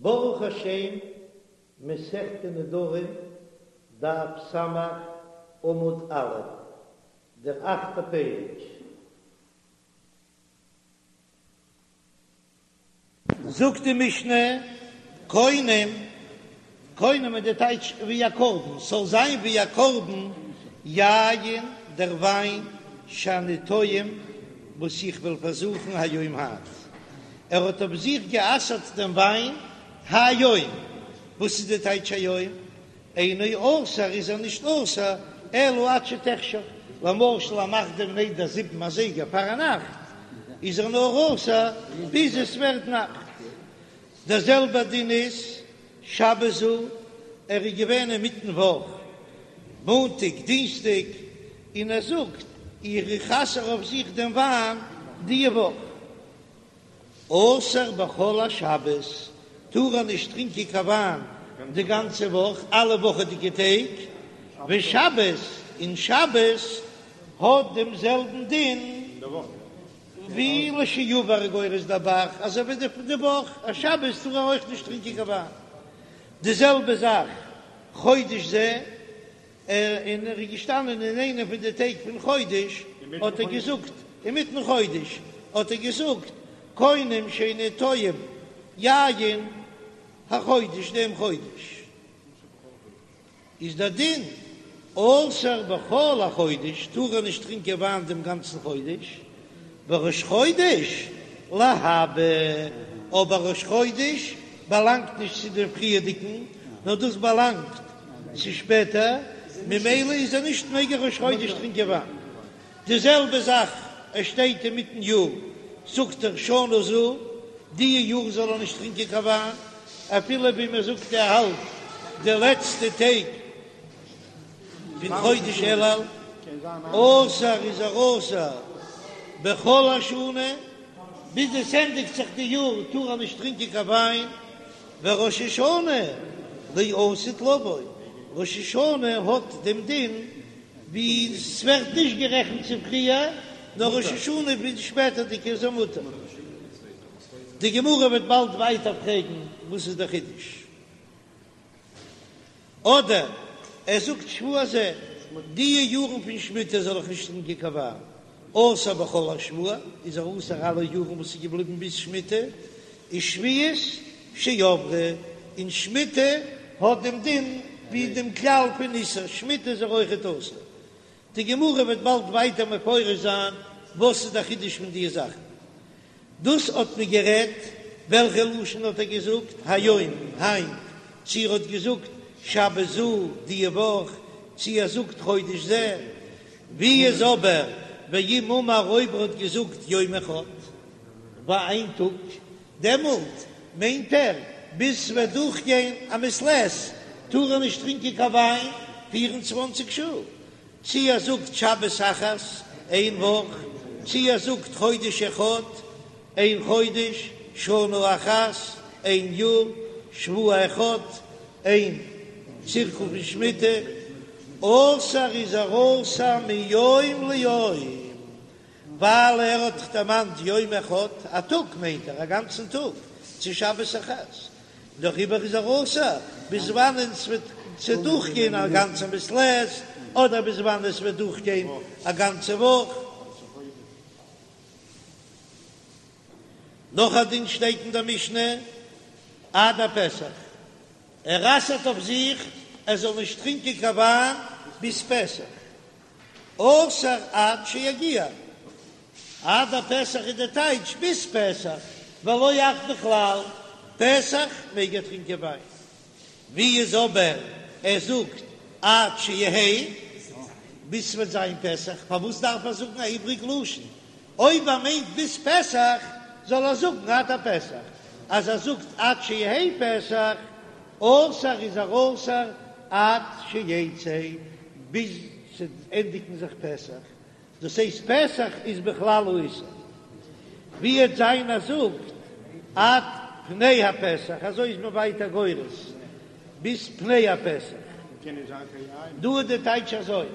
ברוך השם, מסכת נדרים, דף ס', עמוד א', דער אכטער פרק. זאגט די משנה, קונם, קונם איז די טייטש ווי א קרבן, ס'זאל זיין ווי א קרבן, יין, דער וויין, שאני טועם, וואס איך וועל פארזוכן היום היינט. ער האט אויף זיך גע'אסר'ט דעם וויין היום, וואס איז די טייטש היום? אינו אסור איז ער נישט אסור אלא עד שתחשך, למשל ער מאכט דעם נדר זיבן אזייגער פארנאכט, איז ער נאר אסור ביז עס ווערט נאכט. דער זעלבער דין איז שבת זו, ער איז געווען אינמיטן וואך, מאנטאג דינסטאג, און ער זאגט איך אסר אויף זיך דעם וויין די וואך. אסור בכל השבת, טאר ער נישט טרינקען קיין וויין די גאנצע וואך, אלע וואכעדיגע טעג, ושבת, און שבת האט דעם זעלבן דין ווי לשעבר גורס דער ב"ח, אזוי ווי די וואך, א שבת טאר ער אויך נישט טרינקען קיין וויין. די זעלבע זאך חודש זה. און ער איז געשטאנען אין איינע פון די טעג פון חודש, האט ער געזאגט, אינמיטן חודש, האט ער געזאגט, קונם שאיני טועם יין החודש, דעם חודש איז דער דין, אסור בכל החודש, טאר ער נישט טרינקען וויין דעם גאנצן חודש, וראש חודש להבא, אבער ראש חודש באלאנגט נישט צו דעם פריערדיגן, נאר דאס באלאנגט צו שפעטער, ממילא איז ער נישט מעג ער ראש חודש טרינקען וויין. די זעלבע זאך ער שטייט אינמיטן יאר, זאגט ער שנה זו, די יאר זאל ער נישט טרינקען קיין וויין, אפילו ווי מען זאגט ער האלט די לעצטע טעג פון חודש אלול, אסור איז ער אסור בכל השנה, ביז עס ענדיגט זיך די יאר טאר ער נישט טרינקען קיין וויין, וראש השנה לעתיד לבוא, ראש השנה האט דעם דין ווי ס'ווערט נישט גערעכנט צו פריער, נאר ראש השנה ווי די שפעטערדיגע איז ער מותר. די גמרא וועט באלד ווייטער פרעגן וואס איז דער חידוש. אדער ער זאגט שבוע זה, די יארן פון שמיטה זאל איך נישט טרינקען קיין וויין, אסור בכל השבוע, איז ער אסור אלע יארן וואס איז געבליבן ביז שמיטה, ושביעית שעברה, און שמיטה האט דעם דין ווי דעם כלל פון איסור שמיטה איז ער אויכעט אסור. די גמרא וועט באלד ווייטער מפרש זיין וואס איז דער חידוש פון די זאכן. דאס האט מען גערעדט, וועלכע לשון האט ער געזאגט היום, היינט, צו ער האט געזאגט שבת זו, די וואך, צו ער זאגט חודש זה, ווי איז אבער ואם אמר אויב ער האט געזאגט יום אחד, ביי איין טאג, דעמאלט מיינט ער ביז ס'וועט דורכגיין א מעת לעת טאר ער נישט טרינקען קיין וויין פיר און צוואנציג שעה, צי ער זאגט שבת אחת, איין וואך, צי ער זאגט חודש אחד, איין חודש, שנה אחת, איין יאר, שבוע אחד, איין צירקל פון שמיטה, אסור איז ער אסור מיום ליום, ווייל ער האט דאך דערמאנט יום אחד, א טאג מיינט ער א גאנצן טאג, צו שבת אחת, דעריבער איז ער אסור ביז וואנען ס'וועט צו דורכגיין א גאנצע מעת לעת, אדער ביז וואנען עס וועט דורכגיין א גאנצע וואך. נאך א דין שטייט אין דער משנה, עד הפסח, ער אסר'ט אויף זיך ער זאל נישט טרינקען קיין וויין ביז פסח, אסור עד שיגיע, עד הפסח איז די טייטש ביז פסח, ולא עד בכלל, פסח מעג ער טרינקען וויין. ווי איז אבער ער זאגט עד שיהא, ביז ס'וועט זיין פסח, פארוואס דארף ער זאגן א איבריג לשון? אויב ער מיינט ביז פסח זאל ער זאגן עד הפסח, אז ער זאגט עד שיהא פסח, אסור איז ער אסור עד שיצא, ביז ס'ענדיגן זיך פסח, דאס הייסט פסח איז בכלל האיסור, ווי עט זיין ער זאגט עד פני הפסח, אזוי איז מען ווייטער גורס ביז פני הפסח, דא איז די טייטש אזוי,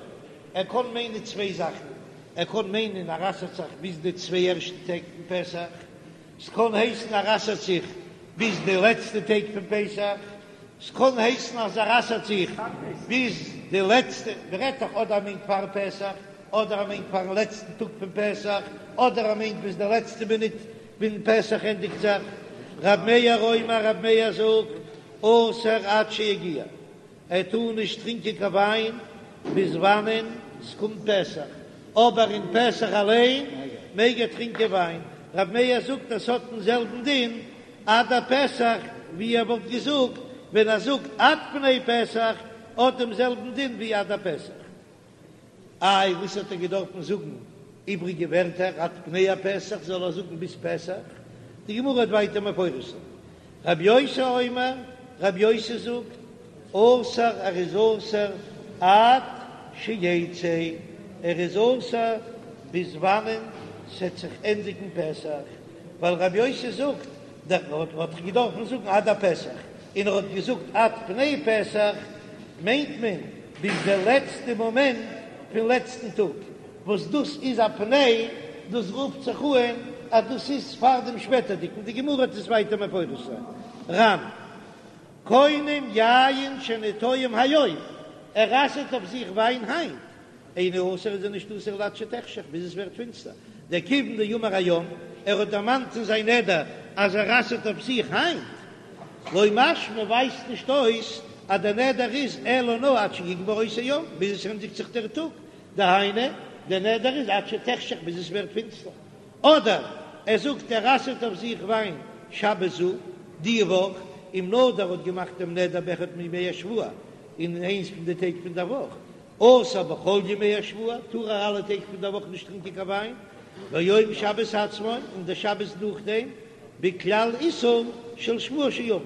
ער קען מיינען צוויי זאכן, ער קען מיינען ער אסר'ט זיך ביז די צוויי ערשטע טעג פון פסח, ס'קען הייסן ער אסר'ט זיך. ביז די לעצטע טעג פון פסח, ס'קען הייסן אז ער אסר'ט זיך ביז די לעצטע, מ'רעדט דאך אדער ער מיינט פאר פסח, אדער ער מיינט פארן לעצטן טאג פון פסח, אדער ער מיינט ביז די לעצטע מינוט ווען פסח ענדיגט זיך. רב מאיר אומר, רב מאיר זאגט, אסור עד שיגיע, ער טאר נישט טרינקען קיין וויין ביז וואנען ס'קומט פסח, אבער אין פסח אליין מעג ער טרינקען וויין. רב מאיר זאגט אז ס'האט דעם זעלבן דין עד הפסח ווי ער וואלט געזאגט ווען ער זאגט עד פני פסח, האט דעם זעלבן דין ווי עד הפסח. איי וואס האט ער געדארפן זאגן איבריגע ווערטער עד פני הפסח זאל ער זאגן ביז פסח? די גמרא וועט ווייטער מפרש זיין. רבי יוסי אומר, רבי יוסי זאגט, אסור ער איז אסור עד שיצא, ער איז אסור ביז וואנען ס'עט זיך ענדיגן פסח, ווייל רבי יוסי זאגט, דער האט דאך געדארפן זאגן עד הפסח, און ער האט געזאגט עד פני פסח, מיינט מען ביז די לעצטע מאמענט פון לעצטן טאג, וואס דאס איז א פני, דאס רופט זיך אן אז דאס איז פאר דעם שפעטערדיגן, די גמרא וועט עס ווייטער מפרש זיין. ר"ן, קונם יין שאינו טועם היום, ער אסר'ט אויף זיך וויין היינט, אינו אסור איז ער נישט אסור אלא עד שתחשך ביז עס ווערט פינסטער, דכיון דאמר היום, ער האט דערמאנט אין זיין נדר אז ער אסר'ט אויף זיך היינט, לא משמע ווייזט נישט אויס אז דער נדר איז אלא נאר עד שיגמור אותו יום ביז עס ענדיגט זיך דער טאג, דהיינו דער נדר איז עד שתחשך ביז עס ווערט פינסטער, אדער ער זאגט ער אסר'ט אויף זיך וויין שבת זו, די וואך, אם נדר האט געמאכט דעם נדר באחד מימי השבוע, אין איינס פון די טעג פון דער וואך, אסור בכל ימי השבוע, טאר ער אלע טעג פון דער וואך נישט טרינקען קיין וויין, ויום שבת עצמו, און דער שבת נאכדעם, בכלל איסור של שבוע שעבר.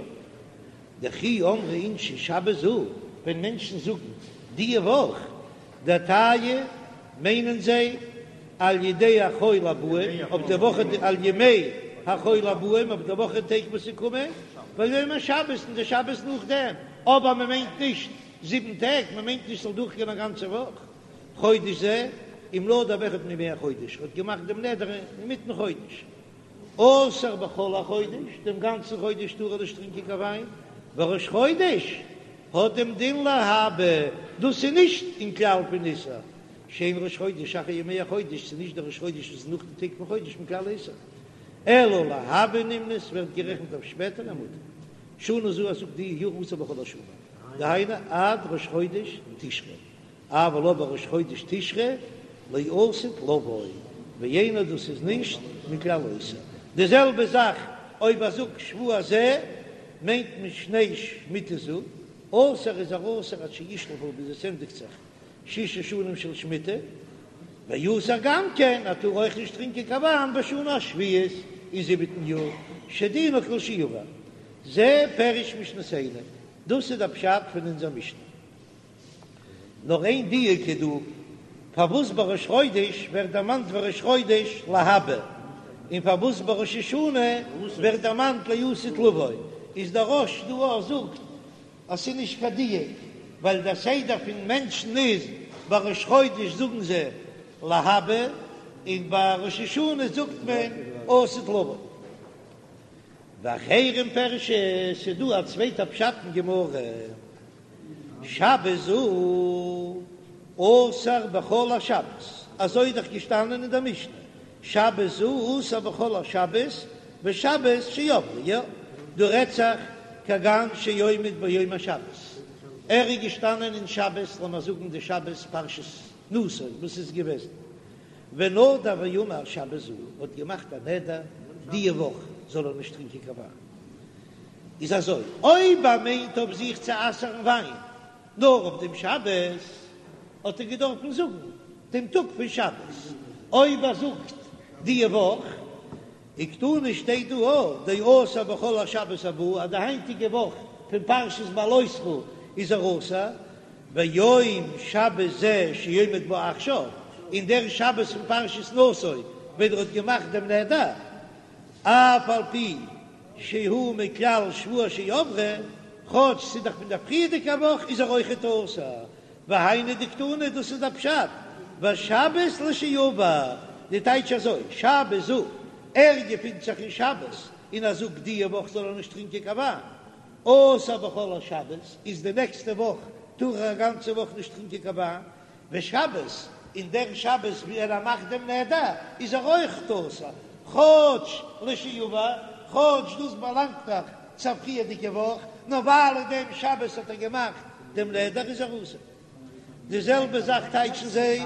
דכי אמרי אינשי שבת זו, ווען מענטשן זאגן די וואך דעתייהו מיינען זיי על ידי החול הבאים, אויף די וואך על ימי החול הבאים, אויף די וואך טעג וואס ס'קומען, ויום השבת און די שבת נאכדעם, אבער מען מיינט נישט זיבן טעג, מען מיינט נישט ס'זאל דורכגיין א גאנצע וואך. חודש זה, אם נדר באחד מימי החודש, האט געמאכט דעם נדר אינמיטן חודש. אסור בכל החודש, דעם גאנצן חודש טאר ער נישט טרינקען קיין וויין, וראש חודש האט דעם דין להבא, דאס איז נישט אין כלל פון איסור, שאין ראש חודש אחר ימי החודש, ס'איז נישט דער ראש חודש וואס איז נאך די טעג פון חודש מכלל איסור, אלא להבא נמנה, ס'ווערט גערעכנט אויף שפעטער ומותר. שנה זו ער זאגט די יאר אסור בכל השנה, דהיינו עד ראש חודש תשרי, אבל אבער ראש חודש תשרי לעתיד לבוא, ואינו דאס איז נישט מכלל איסור. די זעלבע זאך אויב ער זאגט שבוע זה מיינט מען שני שמיטה זו, אסור איז ער אסור עד שישלחו ביז עס ענדיגט זיך שש שנים של שמיטה, ואסור גם כן ער טאר אויך נישט טרינקען קיין וויין בשנה השביעית אין זיבעטן יאר שדינו כלשעבר. זה פירוש משנתנו, דאס איז דער פשט פון אונזער משנה. נאר איין דיוק איז דא, פארוואס ביי ראש חודש ווערט דערמאנט וראש חודש להבא, און פארוואס ביי ראש השנה ווערט דערמאנט לעתיד לבוא, איז דער רא"ש דא אויך זאגט אז ס'איז נישט קיין דיוק, ווייל דער סדר פון מענטשן איז ביי ראש חודש זאגן זיי להבא, און ביי ראש השנה זאגט מען לעתיד לבוא. ואחרים פירשו, ס'איז דא א צווייטע פשט אין גמרא. שבת זו אסור בכל השבת, אזוי איז דאך געשטאנען אין דער משנה, שבת זו אסור בכל השבת ושבת שעברה, יא, דא רעדט זיך כגון שעומד ביום השבת, ער איז געשטאנען אין שבת, לאמיר זאגן די שבת פרשת נשא וואס איז געוועזן, ונדר ואמר שבת זו, האט געמאכט א נדר די וואך זאל ער נישט טרינקען קיין וויין. איז אזוי, אויב ער מיינט אויף זיך צו אסר'ן וויין נאר אויף דעם שבת, האט ער געדארפן זאגן דעם טאג פון שבת, אויב ער זאגט די וואך, וקתני שטייט דא אויך דאסור בכל השבת הבאה, אז די היינטיגע וואך פון פרשת בהעלותך איז ער אסור, ויום שבת זה שעומד בו עכשיו, און דער שבת פון פרשת נשא ווען ער האט געמאכט דעם נדר, אף על פי שהוא מכלל שבוע שעברה, כאטש ס'איז דאך פון דער פריערדיגער וואך איז ער אויכעט אסור, והיינו דקתני דאס איז דער פשט, ושבת לשעבר, די טייטש אזוי, שבת זו, ער געפינט זיך אין שבת. און ער זאגט דיע וואך זאל ער נישט טרינקען קיין וויין, אסור בכל השבת, איז די נעקסטע וואך טאר ער א גאנצע וואך נישט טרינקען קיין וויין, ושבת, און דער שבת ווי ער מאכט דעם נדר איז ער אויך אסור, כאטש לשעבר, כאטש דאס באלאנגט דאך צו א פריערדיגע וואך, נאר ווייל אין דעם שבת האט ער געמאכט דעם נדר איז ער אסור. די זעלבע זאך טייטשן זיי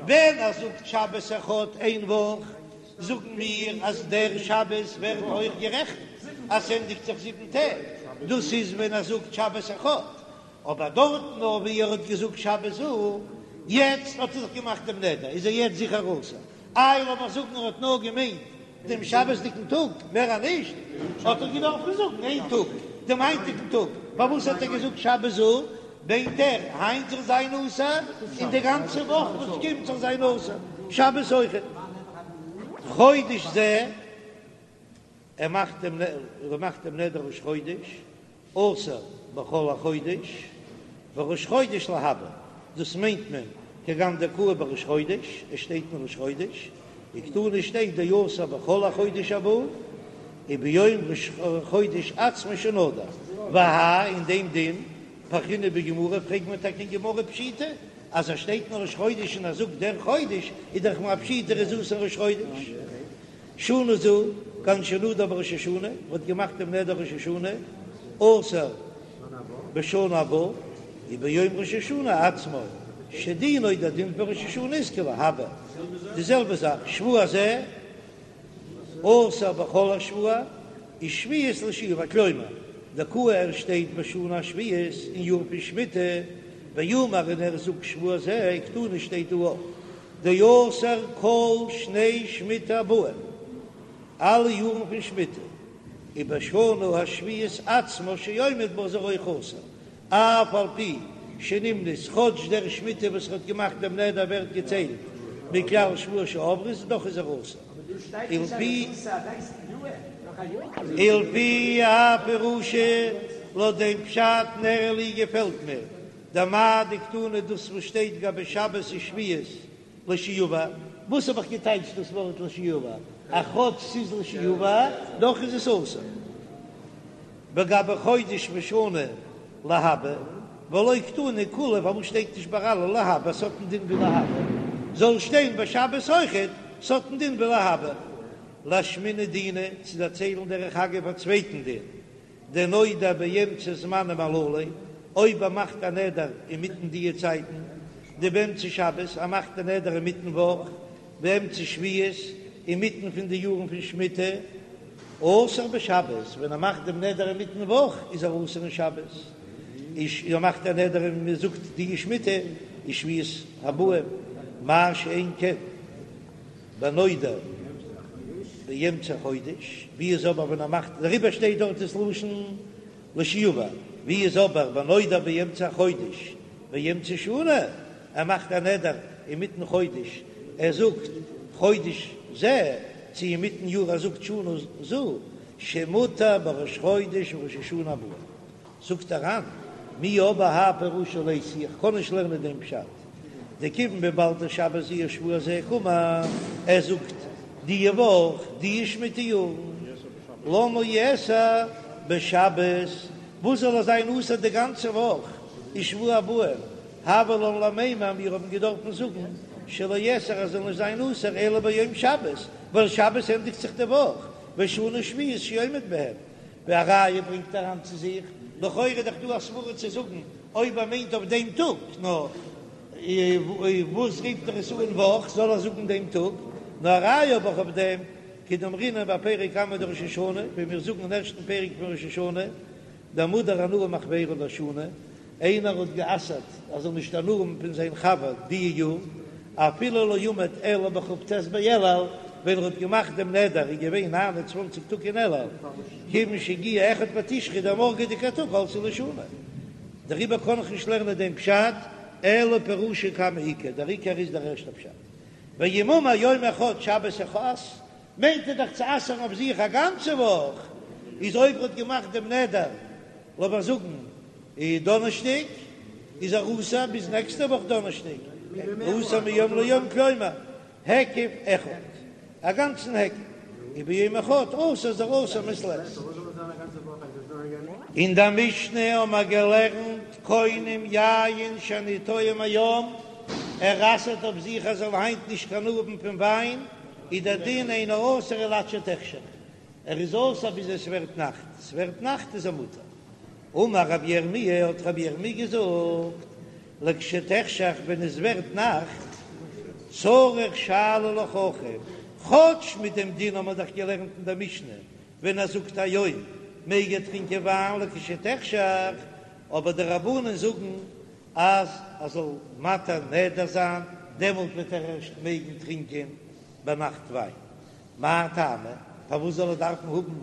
ווען ער זאגט שבת אחד איין וואך, זאגן מיר אז דער שבת ווערט אויך גערעכנט אז ס'ענדיגט זיך זיבן טעג, דאס איז ווען ער זאגט שבת אחד, אבער דארטן נאר ווי ער האט געזאגט שבת זו, יעצט האט ער זיך געמאכט דעם נדר, איז ער יעצט זיכער אסור. איי לאמיר זאגן ער האט נאר געמיינט דעם שבת'דיגן טאג, מער א נישט, האט ער געדארפן זאגן איין טאג, דעם היינטיגן טאג, פארוואס האט ער געזאגט שבת זו? מיינט ער היינט זאל זיין אסור, און די גאנצע וואך וואס קומט זאל זיין אסור, שבת אויכעט. חודש זה. ער מאכט דעם ער מאכט דעם נדר ראש חודש, אסור בכל החודש, וראש חודש להבא, דאס מיינט מען כגון דקאי בראש חודש, עס שטייט אין ראש חודש, וקתני שטייט דאסור בכל החודש הבא, וביום ראש חודש עצמו שנדר, והאי אין דעם דין, פרכינן בגמרא פרעגט מען טאקע אין גמרא פשיטא, אז עס שטייט אין ראש חודש און ער זאגט דער חודש, איז דאך א פשיטא ער איז אסור ראש חודש. שנה זו, כגון שנדר בראש השנה, מ'האט געמאכט דעם נדר ראש השנה, אסור בשנה הבאה, וביום ראש השנה עצמו, שדינו דער דין פון ראש השנה איז כלהבא, די זעלבע זאך, שבוע זה, אסור בכל השבוע, ושביעית לשעבר, כלומר, דקאי ער שטייט בשנה השביעית אין יאר פון שמיטה, ואמר און ער זאגט שבוע זה, וקתני שטייט דא אויך. דאסור כל שני שמיטה הבאים, אלע יארן פון שמיטה, ובשנה השביעית עצמה שעומד בה איז ער אויך אסור, אף על פי שנמנית, כאטש דער שמיטה וואס ער האט געמאכט דעם נדר ווערט געציילט מכלל שבועות שעברו, איז דאך איז ער אסור. ולפי האי פירושא, לויט דעם פשט נראה לי געפעלט מיר, דמאי דקתני דאס וואס שטייט גבי שבת ושביעית לשעבר, וואס האב איך געטייטשט דאס ווארט לשעבר? אז כאטש ס'איז לשעבר דאך איז עס אסור. וגבי חודש ושנה להבא, ולא קתני כולהו פארוואס שטייט נישט ביי אלע להבא ס'האט א דין ווי להבא, זאל שטיין ביי שבת אויכעט ס'האט א דין ווי להבא. לאשמועינן דינא צו דערציילן דרך אגב א צווייטן דין דנודר באמצע זמנים הללו, אויב ער מאכט א נדר אינמיטן דיע צייטן, דבאמצע שבת, ער מאכט א נדר אינמיטן וואך, באמצע שביעית, אינמיטן פון די יארן פון שמיטה, אסור בשבת, ווען ער מאכט דעם נדר אינמיטן וואך איז ער אסור אין שבת, ער מאכט א נדר און מען זאגט די שמיטה איז שביעית הבאים, מה שאין כן. בנודר באמצע חודש, ווי איז אבער ווען ער מאכט, דעריבער שטייט דארט דאס לשון לשעבר, ווי איז אבער בנודר באמצע חודש באמצע שנה, ער מאכט א נדר אינמיטן חודש, ער זאגט חודש זה, צו אינמיטן יאר ער זאגט שנה זו, שמותר בראש חודש וראש השנה הבאה. זאגט דער ר"ן, מיהו אבער האי פירושא ליתי, איך קען נישט לערנען דעם פשט, דכיון וויבאלד דשבת זו ושבוע זה קאמר, ער זאגט די וואך די שמיטה יארן, למה יאסר בשבת, וואס זאל ער זיין אסור די גאנצע וואך, ושבוע הבאים, הוה לן למימר, מיר האבן געדארפן זאגן שלא יאסר ער זאל נישט זיין אסור אלא ביום שבת, ווייל שבת ענדיגט זיך די וואך, ושנה שביעית שעומד בהם, ווי א ראיה ברענגט דער ר"ן צו זיך, לכאורה איז דאך דא א סברא צו זאגן אויב ער מיינט אויף דעם טאג, נאר וואס רופט ער עס אן וואך, זאל ער זאגן דעם טאג, נאר א ראיה האב איך אויף דעם, כדאמרינן בפרק קמא דראש השנה, ווי מיר זאגן אין ערשטן פרק פון ראש השנה, דהמודר הנאה מחבירו לשנה, איינער האט גע'אסר'ט ער זאל נישט הנאה האבן פון זיין חבר די יאר, אפילו לא עמד אלא בכ"ט באלול, ווען ער האט געמאכט דעם נדר איז געווען 29 טאג אין אלול, כיוון שהגיע אחד בתשרי דער מארגעדיגער טאג עלתה לו שנה. דעריבער קען איך נישט לערנען דעם פשט, אלא פירושא קמא עיקר, דער עיקר איז דער ערשטער פשט. ואם אמר יום אחד שבת אחת, מיינט ער דאך צו אסר'ן אויף זיך א גאנצע וואך, איז אויב ער האט געמאכט דעם נדר, לאמיר זאגן דאנערשטאג, איז ער אסור ביז נעקסטע וואך דאנערשטאג, אסור מיום ליום כלומר היקף אחד, א גאנצן היקף. וביום אחד אסור איז ער אסור מעת לעת. אין דער משנה האבן מיר געלערנט קונם יין שאני טועם היום, ער אסר'ט אויף זיך ער זאל היינט נישט קיין הנאה האבן פון וויין, איז דער דין אינו אסור אלא עד שתחשך, ער איז אסור ביז עס ווערט נאכט, עס ווערט נאכט איז ער מותר. אמר רבי ירמי' האט רבי ירמי' געזאגט, לכשתחשך ווען עס ווערט נאכט, צריך שאלה לחכם, כאטש מיט דעם דין האבן מיר דאך געלערנט אין דער משנה, ווען ער זאגט היום מעג ער טרינקען וויין לכשתחשך, אבער די רבנן זאגן אז ער זאל מתיר נדר זיין, דעמאלט וועט ער ערשט מעגן טרינקען ביינאכט וויין. מאי טעמא? פארוואס זאל ער דארפן האבן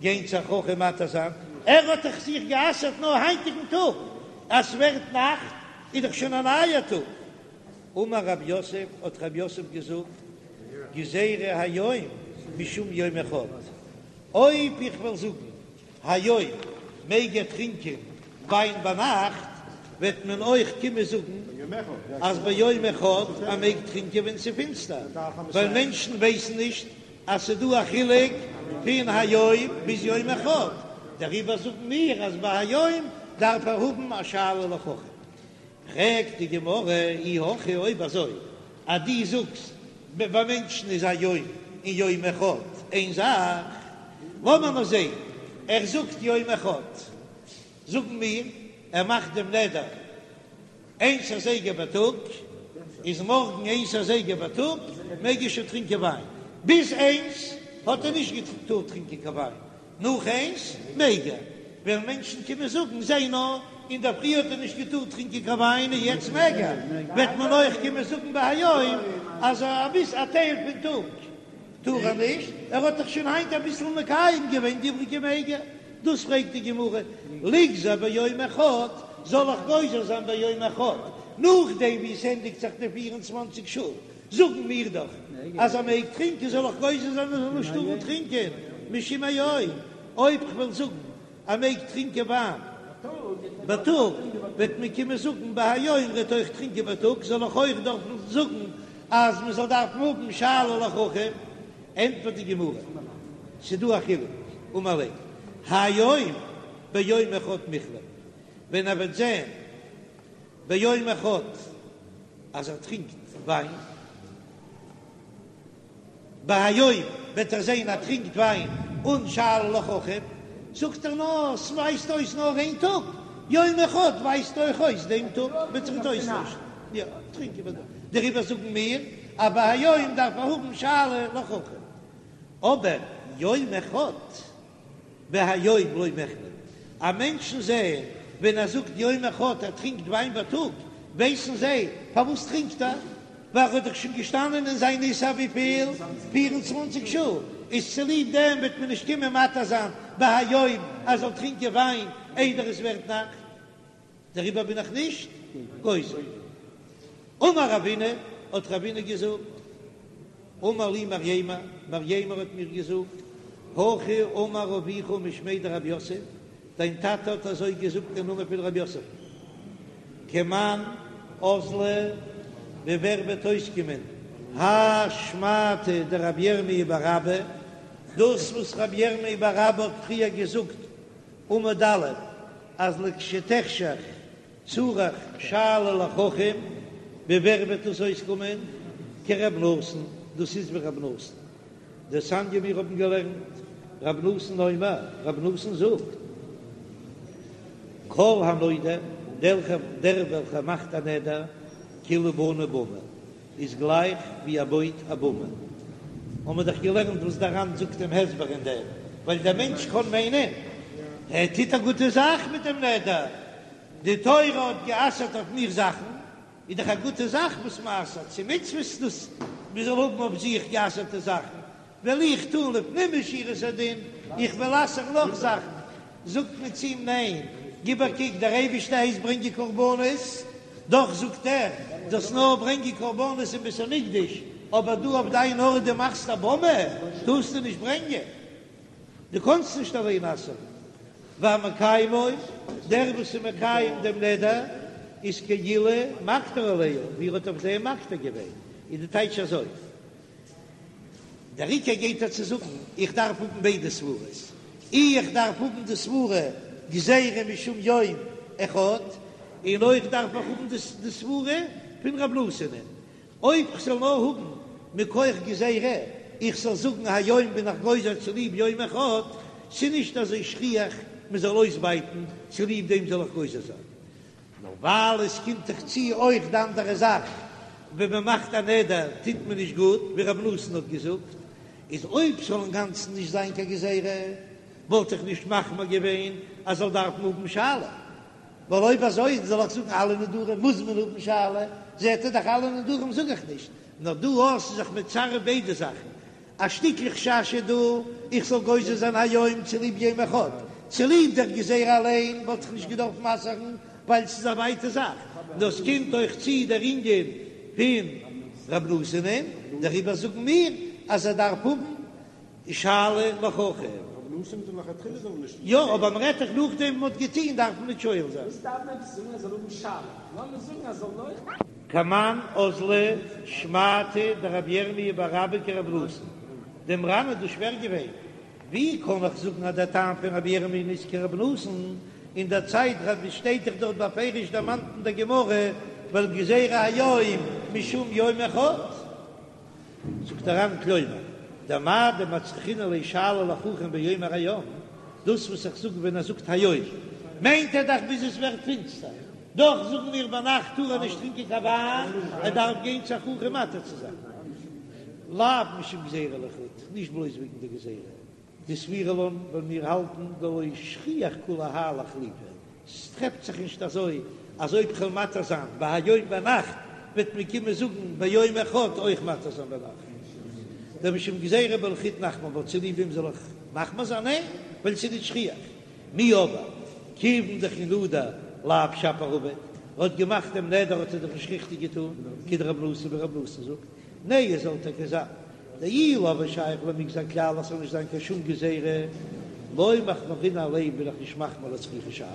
גיין צו א חכם מתיר זיין? ער האט דאך זיך גע'אסר'ט נאר היינטיגן טאג, אז ס'ווערט נאכט איז דאך שוין א נייער טאג. אמר רב יוסף, האט רב יוסף געזאגט, גזירה היום משום יום אחד, אויב איך וועל זאגן היום מעג ער טרינקען וויין ביינאכט, וועט מען אויך קומען זאגן אז ביום אחד ער מעג טרינקען ווען ס'איז פינסטער, ווייל מענטשן ווייסן נישט אז ס'איז דא א חילוק פון היום ביז יום אחד, דעריבער זאגן מיר אז ביי היום דארף ער האבן א שאלה לחכם. פרעגט די גמרא, אי הכי אויב אזוי אז דו זאגסט ביי מענטשן איז היום און יום אחד איין זאך, לאמיר נאר זען, ער זאגט יום אחד, זאגן מיר ער מאכט דעם נדר איינס אזייגער בייטאג, איז מארגן איינס אזייגער בייטאג מעג ער שוין טרינקען וויין, ביז איינס האט ער נישט געטארט טרינקען קיין וויין, נאך איינס מעג ער, וועלן מענטשן קומען זאגן, זע נאר, אינדערפרי האט ער נישט געטארט טרינקען קיין וויין און יעצט מעג ער, וועט מען אויך קומען זאגן ביי היום אז אביס א טייל פון טאג טאר ער נישט, ער האט דאך שוין היינט אביסל מקיים געווען די איבריגע מעג ער, דאס פרעגט די גמרא, ליגזור ביום אחד, זאל איך גוזר זיין ביום אחד, נאכדעם ווי עס ענדיגט זיך די פיר און צוואנציג שעה, זאגן מיר דאך אז ער מעג טרינקען, זאל איך גוזר זיין ער זאל נישט טארן טרינקען משום היום, אויב כ'וועל זאגן ער מעג טרינקען וויין בייטאג, וועט מען קומען זאגן ביי היום ער וועט אויך טרינקען בייטאג, זאל איך אויך דארפן זאגן אז מען זאל דארפן האבן שאלה לחכם? ענטפערט די גמרא, ס'דא א חילוק, אמר ליה, היום ביום אחד מיחלף, ווען ער וועט זען ביום אחד אז ער טרינקט וויין, בהיום וועט ער זען ער טרינקט וויין אן שאלה לחכם, זאגט ער נאר ס'ווייזט אויס נאר איין טאג, יום אחד ווייזט אויך אויס דעם טאג וועט זיך נישט אויסטוישן, יא טרינקען וועט ער, דעריבער זאגן מיר אז בהיום דארף ער האבן שאלה לחכם, אבער יום אחד. בהיום לא מיחלף, אז מענטשן זעען ווען ער זאגט יום אחד ער טרינקט וויין בייטאג, ווייסן זיי פארוואס טרינקט ער, ווייל ער האט דאך שוין געשטאנען אין זיין איסור וויפיל? 24 שעה, איז צוליב דעם וועט מען נישט קומען מתיר זיין בהיום ער זאל טרינקען וויין איידער עס ווערט נאכט. דעריבער בין איך נישט גוזר. אמר רבינא, האט רבינא געזאגט, אמר לי מרימר, מרימר האט מיר געזאגט, הכי אמר אבוך משמיה דרב יוסף, דיין טאטע האט אזוי געזאגט אין נאמען פון רב יוסף, כמאן אזלא, ווי ווער וועט אויסקומען, האי שמעתא דרבי ירמי' בר אבא, דאס וואס רבי ירמי' בר אבא האט פריער געזאגט, עמוד א', אז לכשתחשך צריך שאלה לחכם, ווי ווער וועט דאס אויסקומען? כרב נתן, דאס איז ווי רב נתן. דתניא מיר האבן געלערנט, רב נתן אומר, רב נתן זאגט, כל הנודר, דער וועלכער מאכט א נדר, כאילו בנה במה. איז גלייך ווי ער בויט א במה. האבן מיר דאך געלערנט וואס דער ר"ן זאגט דעם הסבר אין דעם, ווייל דער מענטש קען מיינען ער טוט א גוטע זאך מיט דעם נדר, די תורה האט גע'אסר'ט אויף מיר זאכן, איז דאך א גוטע זאך וואס מען אסר'ט, ס'איז מצוות דאס מען זאל האבן אויף זיך גע'אסר'טע זאכן, וועל איך טון לפנים משורת הדין, איך וועל אסר'ן נאך זאכן, זאגט מען צו אים ניין, גיב א קוק, דער אייבערשטער הייסט ברענגען קרבנות, דאך זאגט ער, זאלסט נאר ברענגען קרבנות אין בית המקדש, אבער דא אויף דיין ארט דו מאכסט א במה, טארסטו נישט ברענגען, דו קאנסט נישט אליין אסר'ן. והמקיימו, דער וואס איז מקיים דעם נדר, איז כאילו מקטיר עליה, ווי ער האט אויף דעם מקטיר געווען, איז די טייטש אזוי. דער עיקר גייט ער צו זאגן, איך דארף האבן ביידע סברות, אי איך דארף האבן די סברה גזירה משום יום אחד, און אויך דארף איך האבן די סברה פון רב נתן'ען. אויב כ'זאל נאר האבן מכח גזירה, איך זאל זאגן היום בין איך גוזר צוליב יום אחד, ס'נישט אזוי שכיח מ'זאל אויסבייטן צוליב דעם זאל איך גוזר זיין. נאר ווייל עס קומט דאך צו אויך די אנדערע זאך, ווען מען מאכט א נדר טוט מען נישט גוט, ווי רב נתן האט געזאגט, איז אויב ס'זאל אינגאנצן נישט זיין קיין גזירה, וואלט איך נישט מחמיר געווען אז זאל דארפן האבן שאלה, ווייל אויב אזוי זאל איך זאגן אלע נדרים מוז מען האבן שאלה, זעט ער דאך אלע נדרים זאג איך נישט, נאר דא אז ס'איז זיך מצרף ביידע זאכן, א שטיקל חשש איז דא איך זאל גוזר זיין היום צוליב יום אחד, צוליב דער גזירה אליין וואלט איך נישט געדארפט מסר'ן ווייל ס'איז א ווייטע זאך, נאר ס'קומט אויך צו דער ענין פון רב נתן'ען, דעריבער זאגן מיר אז ער דארף האבן שאלה לחכם. יא, אבער מ'רעדט דאך נאכדעם וואס מ'האט געטון דארף מען נישט שואל זיין. כמאן אזלא שמעתא דרבי ירמיה בר אבא כרב נתן, דעם ר"ן איז דאס שווער געווען, ווי קען איך זאגן אז דער טעם פון רבי ירמי' איז כרב נתן, אין דער צייט רבי שטייט דאך דארט בפירוש דערמאנט אין דער גמרא ווייל גזירה היום משום יום אחד. זאגט דער ר"ן כלומר, דמאי דמצרכינן ליה שאלה לחכם באומר היום, דאס וואס איך זאג ווען ער זאגט היום, מיינט ער דאך ביז עס ווערט פינסטער, דאך זאגן מיר ביינאכט טאר ער נישט טרינקען קיין וויין, ער דארף גיין צו א חכם מתיר צו זיין. לאו משום גזירה לחוד, נישט בלויז וועגן די גזירה. דסבירא לן ווייל מיר האלטן דלא שכיח כולי האי לאיחלופי, ס'טרעפט זיך נישט אזוי אז אויב כ'וועל מתיר זיין בהיום ביינאכט וועט מען קומען זאגן ביום אחד אויך מתיר זיין ביינאכט, דמשום גזירה בלחוד נחמיר בה צוליב דעם זאל איך מחמיר זיין? ניין, ווייל ס'איז נישט שכיח. מיהו אבער כיוון דכי נדר לאו שפיר עביד, ער האט געמאכט דעם נדר האט ער דאך נישט ריכטיג געטון, כדרב נתן ווי רב נתן זאגט, נהי זאל טאקע זיין דאי לא הוה שייך למגזר כלל אז ס'זאל נישט זיין קיין שום גזירה, לא מחמרינן עליה בין איך נישט מחמיר לצריכי שאלה.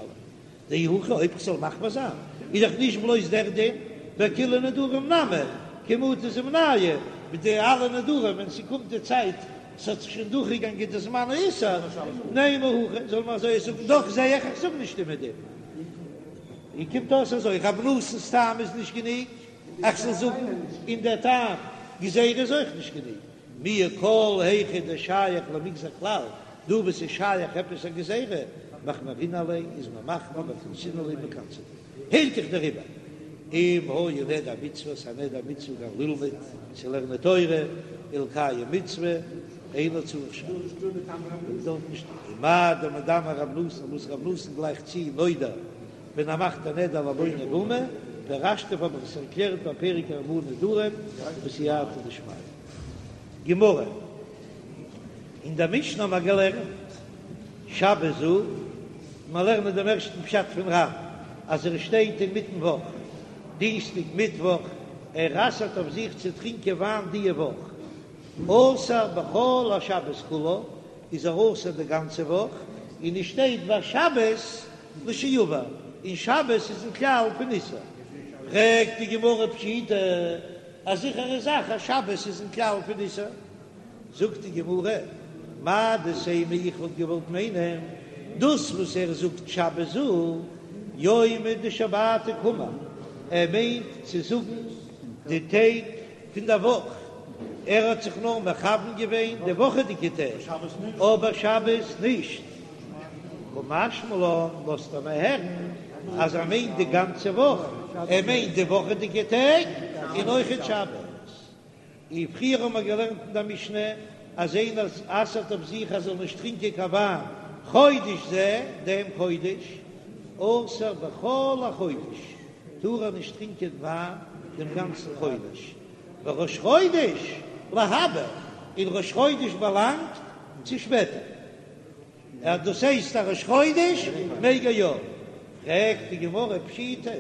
דאי הכי אויב כ'זאל מחמיר זיין איז דאך נישט בלויז דער דין, בכולהו נדרים נמי, כי מטו זימנייהו, מיט די אלע נדרים ווען ס'קומט די צייט ס'האט זיך שוין דורכגעגאנגען די זמן האיסור, נימא הכי זאל מען אזוי זאגן, דאך זע איך איך זאג נישט איבער דעם. און קומט אויס אזוי, רב נתן'ס טעם איז נישט גענוג. איך זאל זאגן און דער טעם גזירה איז אויך נישט גענוג מיהו כל היכא דשייך למגזר כלל, דא וואו ס'איז שייך עפעס א גזירה, מחמרינן עליה איז מען מחמיר וקנסינן ליה מ'קנס'עט הילכך דעריבער אם היה נדר מצוה ס'א נדר מצוה כגון ללמוד צו לערנען תורה ולקיים מצוה אינו צריך שאלה דארף נישט ומאי דמדמי רב נתן וואס רב נתן גלייכט צו נודר ווען ער מאכט א נדר לבונה במה, פירשתיו האב איך עס ערקלערט בפרק ארבעה נדרים בסייעתא דשמיא. גמרא, אין דער משנה האבן מיר געלערנט שבת זו, מיר לערנען דעם ערשטן פשט פון ר"ן אז ער שטייט אינמיטן וואך, דינסטאג מיטוואך, ער אסר'ט אויף זיך צו טרינקען וויין דיע וואך, אסור בכל השבת כולה, איז ער אסור די גאנצע וואך, און עס שטייט והשבת לשעבר, און שבת איז אין כלל פון איסור. פרעגט די גמרא פשיטא, א זיכערע זאך אז שבת איז אין כלל פון איסור. זאגט די גמרא, מהו דתימא איך וואלט געוואלט מיינען דאס וואס ער זאגט שבת זו, יומא דשבתא קאמר, ער מיינט צו זאגן די טעג פון דער וואך, ער האט זיך נאר מכוון געווען די וואכעדיגע טעג, אבער שבת נישט. קא משמע לן, לאזט ער מיר הערן אז ער מיינט די גאנצע וואך, ער מיינט די וואכעדיגע טעג און אויכעט שבת. און פריער האבן מיר געלערנט אין דער משנה אז איינער אסר'ט אויף זיך אז ער זאל נישט טרינקען קיין וויין חודש זה, דעם חודש, אסור בכל החודש, טאר ער נישט טרינקען וויין דעם גאנצן חודש, וראש חודש להבא, און ראש חודש באלאנגט צו שפעטער. אז דאס הייסט א ראש חודש מעג ער יא? פרעגט די גמרא פשיטא,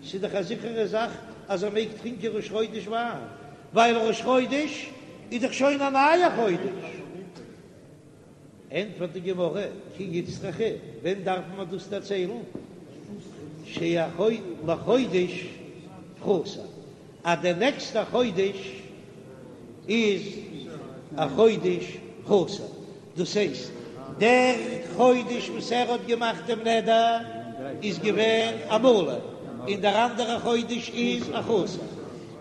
ס'איז דאך א זיכערע זאך אז ער מעג טרינקען ראש חודש וויין, ווייל ראש חודש איז דאך שוין א נייע חודש. ענטפערט די גמרא, כי איצטריכא, ווען דארף מען דאס דערציילן? שלחודש פחותה, אז דער נעקסטער חודש איז. א חודש חסר, דאס הייסט דער חודש וואס ער האט געמאכט דעם נדר איז געווען א מלא, און דער אנדערע חודש איז א חסר,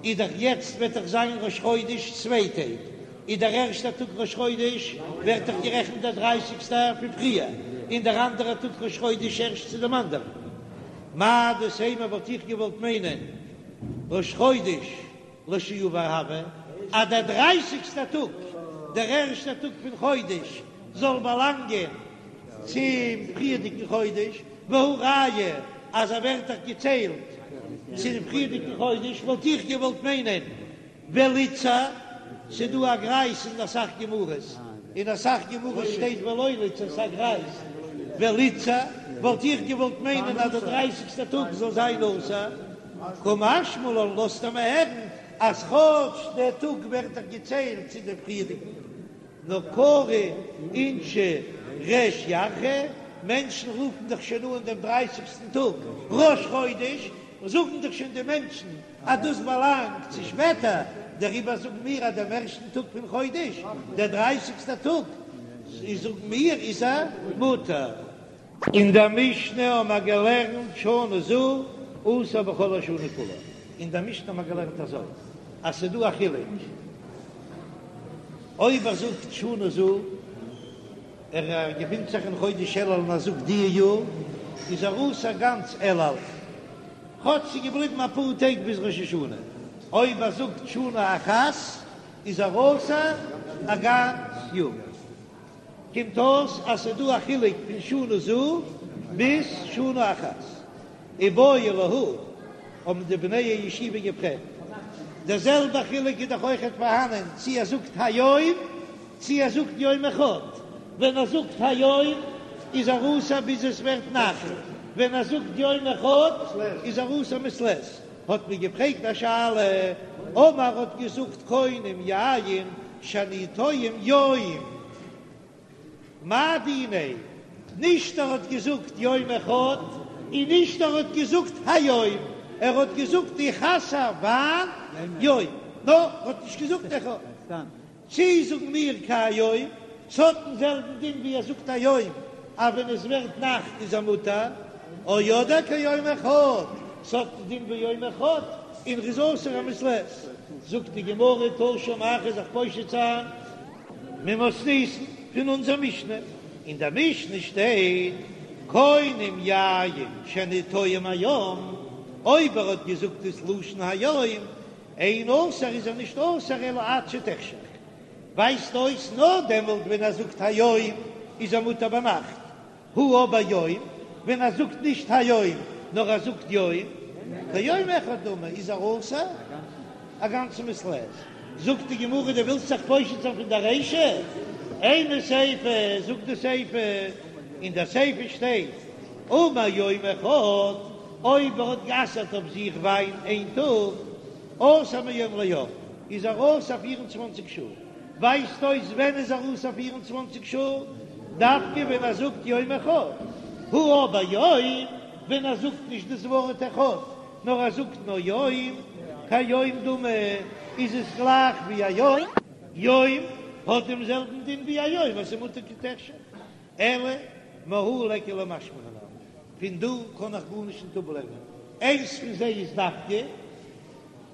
איז דאך יעצט וועט דאך זיין ראש חודש צוויי טעג, איז דער ערשטער טאג ראש חודש ווערט דאך גערעכנט דער דרייסיגסטער פון פריער, און דער אנדערער טאג ראש חודש ערשט צו דעם אנדערן. מהו דתימא וואלט איך געוואלט מיינען ראש חודש לשעבר הוי, אז דער דרייסיגסטער טאג, דער ערשטער טאג פון חודש, זאל באלאנגען צום פריערדיגן חודש, והא ראיה אז ער ווערט דאך געציילט צום פריערדיגן חודש, וואלט איך געוואלט מיינען וליתסר, ס'דא א גרייז אין אסאך גמרות, אין אסאך גמרות שטייט ולא ליתסר, ס'א גרייז, וליתסר, וואלט איך געוואלט מיינען אז דער דרייסיגסטער טאג זאל זיין אסור, קא משמע לן לאזט ער מיר הערן אז כאטש דער טאג ווערט דאך געציילט צו דעם פריערדיגן, נאר קרי אינשי ריש ירחא, מענטשן רופן דאך שוין אן דעם דרייסיגסטן טאג ראש חודש, זאגן דאך שוין די מענטשן אז דאס באלאנגט צו שפעטער, דעריבער זאגן מיר אז דעם ערשטן טאג פון חודש, דער דרייסיגסטער טאג, זאגן מיר איז ער מותר. אין דער משנה האבן מיר געלערנט שנה זו אסור בכל השנה כולה, אין דער משנה האבן מיר געלערנט אזוי אז ס'איז דא א חילוק אויב ער זאגט שנה זו, ער געפינט זיך אין חודש אלול און ער זאגט די יאר איז ער אסור גאנץ אלול, כאטש ס'איז געבליבן אפאר טעג ביז ראש השנה, אויב ער זאגט שנה אחת איז ער אסור א גאנץ יאר. קומט אויס אז ס'איז דא א חילוק פון שנה זו ביז שנה אחת. איבעיא להו, האבן די בני הישיבה געפרעגט, דער זעלבער חילוק איז דאך אויכעט פארהאנען צי ער זאגט היום צי ער זאגט יום אחד, ווען ער זאגט היום איז ער אסור ביז עס ווערט נאכט, ווען ער זאגט יום אחד איז ער אסור מעת לעת. האט מען געפרעגט א שאלה, אמר האט געזאגט קונם יין שאני טועם יום, מאי דיניה, נישט ער האט געזאגט יום אחד און נישט ער האט געזאגט היום, ער האט געזאגט איך אסר וויין יום, נאר ער האט נישט געזאגט אחד. צי זאגן מיר כהיום, ס'האט דעם זעלבן דין ווי ער זאגט היום, אז ווען עס ווערט נאכט איז ער מותר, או אדער כיום אחד, ס'האט דעם דין ווי יום אחד, און ר'איז אסור א מעת לעת. זאגט די גמרא תא שמע כ'וועל זיך פושט זיין ממתניתין פון אונזער משנה, אין דער משנה שטייט קונם יין שאני טועם היום, אויב ער האט געזאגט דאס לשון היום, אין אסור איז ער נישט אסור אלא עד שתחשך, ווייזט אויס נאר דעמאלט ווען ער זאגט היום איז ער מותר ביינאכט, הא אבער יום, ווען ער זאגט נישט היום נאר ער זאגט יום, כיום אחד דמי איז ער אסור א גאנצע מעת לעת. זאגט די גמרא דו ווילסט זיך פושט זיין פון די רישא? אימא סיפא, זאגט די סיפא, אין די סיפא שטייט אמר יום אחד, אויב ער האט גע'אסר'ט אויף זיך וויין איין טאג, אסור מיום ליום, איז ער אסור פיר און צוואנציג שעה. ווייזט אויס ווען איז ער אסור פיר און צוואנציג שעה? דווקא ווען ער זאגט יום אחד. הא אבער יום, ווען ער זאגט נישט דאס ווארט אחד, נאר ער זאגט נאר יום, כיום דמי, איז עס גלייך ווי א יום. יום האט דעם זעלבן דין ווי א יום אז ס'איז מותר כי תחשך. אלא מהא ליכא למשמע מינה, פון דא קען איך גארנישט נישט אפלערנען, איינס פון זיי איז דווקא,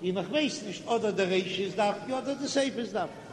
און איך ווייס נישט אדער די רישא איז דווקא אדער די סיפא איז דווקא.